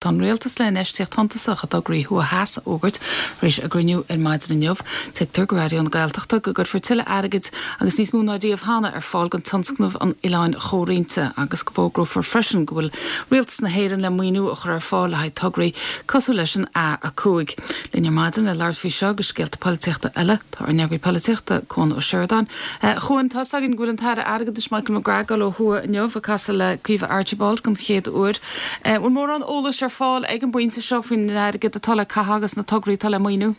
Tá an Rialtas le infheistíocht shuntasach i dtograí thuaidh theas a fhógairt tar éis a gcruinniú ar maidin inniu. Tuigtear go Raidió na Gaeltachta go gcuirfear tuilleadh airgid agus níos mó ná riamh cheana ar fáil don tionscnamh an Oileáin Chomhroinnte agus go bhfógrófar freisin go bhfuil Rialtas na hÉireann le maoiniú a chur ar fáil le haghaidh tograí cosúil leis an A5. Linn ar maidin le labhairt faoi seo agus scéalta polaitíochta eile tá ár n-eagraí polaitíochta, Cuan Ó Seireadáin. A Chuain, tá's againn go bhfuil an tAire Airgeadais Michael McGrath ag dul ó thuaidh inniu ag casadh le Caoimhe Archibald den chéad uair. An bhfuil mórán eolais ar fáil ag an bpointe seo faoin airgead atá le caitheamh agus na tograí atá le maoiniú?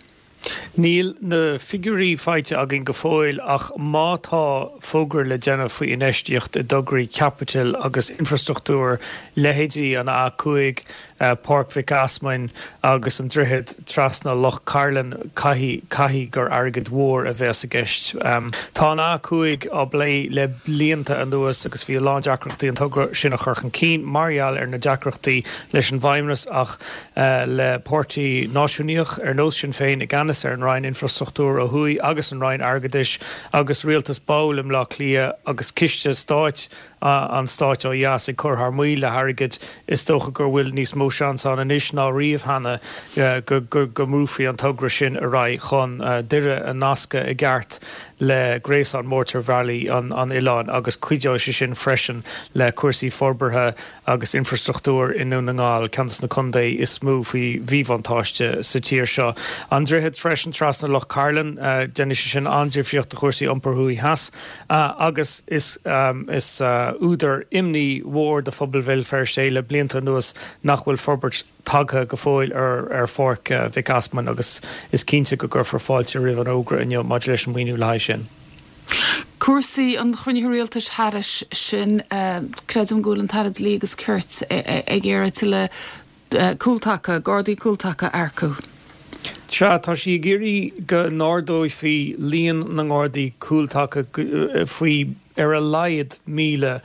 Níl na figiúirí faighte againn go fóill ach má tá fógra le déanamh faoi infheistíocht i dtograí caipitil agus infrastruchtúir, leithéidí an A5, Páirc Mhic Easmainn agus an droichead trasna Loch Cairlinn, caithfidh, caithfidh gur airgead mhór a bheas i gceist. Tá an A5 á bplé le blianta anuas agus bhí a lán deacrachtaí an togra sin a chur chun cinn mar gheall ar na deacrachtaí leis an bhFeidhmeannas ach le páirtí náisiúnaíoch ar nós Sinn Féin i gceannas ar an Roinn Infrastruchtúir ó thuaidh agus an Roinn Airgeadais agus rialtas ball i mBleá Cliath agus ciste stáit an stáit ó dheas ag cur thar maoil le hairgead, is dócha gur bhfuil níos mó seans ann anois ná riamh cheana go mbrúfaí an togra sin ar aghaidh chun Doire a nascadh i gceart le gréasán mótarbhealaí an oileáin agus cuideoidh sé sin freisin le cúrsaí forbartha agus infrastruchtúir i nDún na nGall, ceann de na contae is mó faoi mhíbhuntáiste sa tír seo. An droichead freisin trasna Loch Cairlinn, déanfaidh sé sin an-difríocht do chúrsaí iompair thuaidh theas. Agus is údar imní mhór do phobal Bhéal Feirste é le blianta anuas nach bhfuil forbairt tagtha go fóill ar Pháirc Mhic Easmainn agus is cinnte go gcuirfear fáilte roimh an fhógra inniu maidir leis an maoiniú le haghaidh sin. Cúrsaí an chruinnithe rialtais thairis sin, creidim go bhfuil an tAire Dlí agus Cirt ag iarraidh tuilleadh cúltaca, Gardaí cúltaca a earcú. Sea, tá sí ag iarraidh go n-ardófaí líon na nGardaí Cúltaca faoi ar a laghad 1,000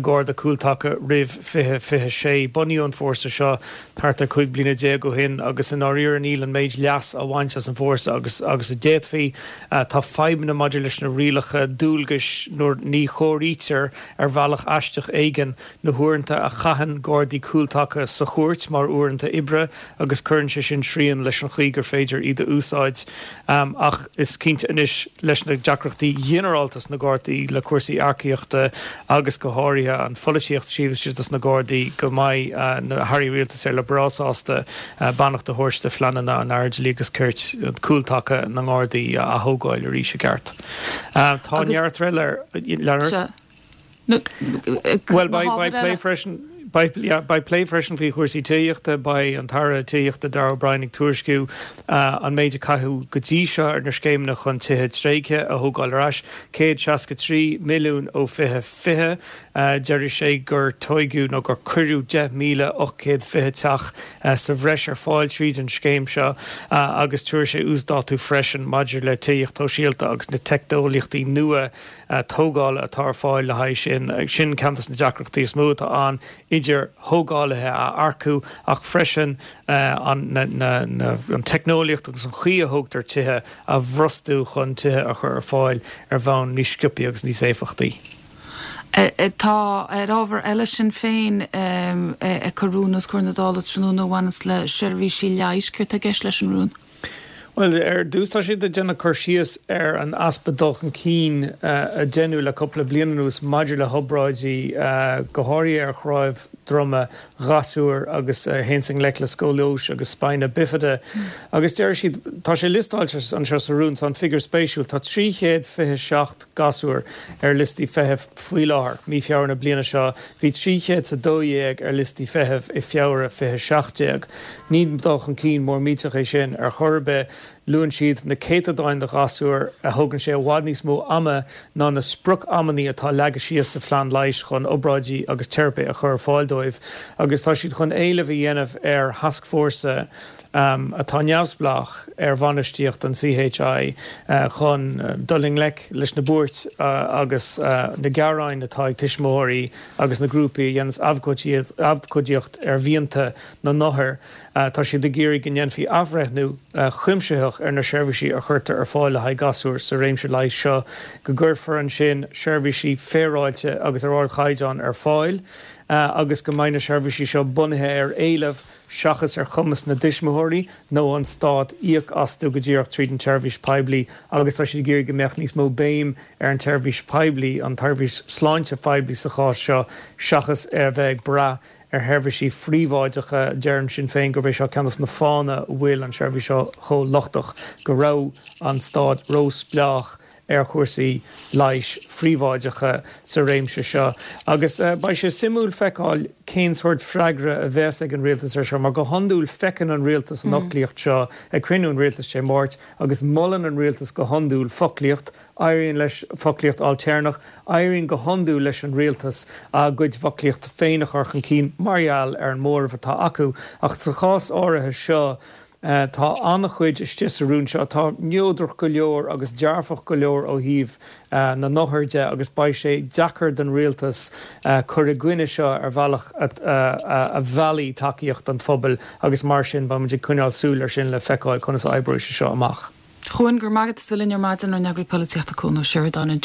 Garda Cúltaca roimh 2026. Bunaíodh an fórsa seo thart ar 15 bliana ó shin agus i ndáiríre níl an méid leas á bhaint as an bhfórsa agus agus a d'fhéadfaí. Tá fadhbanna maidir leis na rialacha dualgais nuair ní chomhairítear ar bhealach aisteach éigin na huaireanta a chaitheann Gardaí Cúltaca sa chúirt mar uaireanta oibre agus cuireann sé sin srian leis an chaoi gur féidir iad a úsáid. Ach is cinnte anois leis na deacrachtaí ginearálta sna Gardaí le cúrsaí earcaíochta agus go háirithe an pholaitíocht taobh istigh dos na Gardaí go mbeidh na hairí rialtais ar le breá sásta beannacht a thabhairt do phleananna an Aire Dlí agus Cirt cúltaca na nGardaí a athógáil arís i gceart. Tá neart eile ar lean. Bhuel, beidh plé freisin, beidh plé freisin faoi chúrsaí tithíochta. Beidh an tAire Tithíochta Darragh O'Brien ag tuairisciú an méid a caitheadh go dtí seo ar na scéimeanna chun tithe tréigthe a thógáil ar ais, 163 milliún ó 2020. Deir sé gur tóigeadh nó gur cuireadh 10,820 teach sa bhreis ar fáil tríd an scéim seo agus tabharfaidh sé uasdátú freisin maidir le tithíocht shóisialta agus na teicneolaíochtaí nua tógála atá ar fáil le haghaidh sin. Sin ceann de na deacrachtaí is mó atá ann, idir thógálaithe a earcú ach freisin an teicneolaíocht agus an chaoi a thógtar tithe a bhrostú chun tithe a chur ar fáil ar bhonn níos sciobthaí agus níos éifeachtaí. Tá ar ábhar eile Sinn Féin ag cur rún os comhair na Dála tráthnóna a bhaineanns le seirbhísí leighis. Céard tá i gceist leis an rún? Bhuel, ar dtús tá siad ag déanamh cur síos ar an easpa dul chun cinn a deineadh le cúpla bliain anuas maidir le hobráidí, go háirithe ar chnámh droma ghasúir agus a théanns i ngleic le scóilióis agus spina bifida. Agus deir siad, tá sé liostáilte anseo sa rún, tá an figiúr spéisiúil, tá 327 gasúr ar liostaí feithimh faoi láthair, mí Feabhra na bliana seo, bhí 312 ar liostaí feithimh i Feabhra 2017. Ní dul chun cinn mór millteach é sin ar chor ar bith. Luann siad na céatadáin de ghasúir a thógann sé i bhfad níos mó ama ná na sprioc-amannaí atá leagtha síos sa phlean leighis chun obráidí agus teiripe a chur ar fáil dóibh agus tá siad chun éileamh a dhéanamh ar thascfhórsa atá neamhspleách ar bhainistíocht an CHI chun dul i ngleic leis na buairt agus na gearáin atá ag tuismitheoirí agus na grúpaí a dhéananns abhcóidíocht ar mhianta na n-othar. Tá siad ag iarraidh go ndéanfaí athbhreithniú cuimsitheach ar na seirbhísí a chuirtear ar fáil le haghaidh gasúr sa réimse leighis seo, go gcuirfear ansin seirbhísí féaráilte agus ar ardchaighdeán ar fáil. agus go mbeidh na seirbhísí seo bunaithe ar éileamh seachas ar chumas na dtuismitheoirí nó an stát íoc astu go díreach tríd an tseirbhís poiblí agus tá siad ag iarraidh go mbeadh níos mó béim ar an tseirbhís poiblí, an tseirbhís sláinte phoiblí sa chás seo, seachas a bheith ag brath ar sheirbhísí phríobháideacha. Deireann Sinn Féin gurb é seo ceann de na fáthanna a bhfuil an tseirbhís seo chomh lochtach, go raibh an stát róspleách ar chúrsaí leighis phríobháideacha sa réimse seo. Agus beidh sé suimiúil feiceáil cén sórt freagra a bheas ag an rialtas ar seo, mar go hiondúil feiceann an rialtas an fhoclaíocht seo ag cruinniú an rialtais Dé Máirt agus molann an rialtas go hiondúil foclaíocht, éiríonn leis foclaíocht ailtéarnach, éiríonn go hiondúil leis an rialtas a gcuid foclaíochta féin a chur chun cinn mar gheall ar an móramh atá acu. Ach sa chás áirithe seo, Tá an-chuid istigh sa rún seo atá neodrach go leor agus dearfach go leor ó thaobh na n-othar de agus beidh sé deacair don rialtas cur i gcoinne seo ar bhealach a mheallfaidh tacaíocht an phobail agus mar sin beidh muid ag coinneáil súil ar sin le feiceáil conas a oibreoidh sé seo amach. A Chuain, go raibh maith agat as a bheith linn ar maidin, ár n-eagraí polaitíochta Cuan Ó Seireadáin ansin.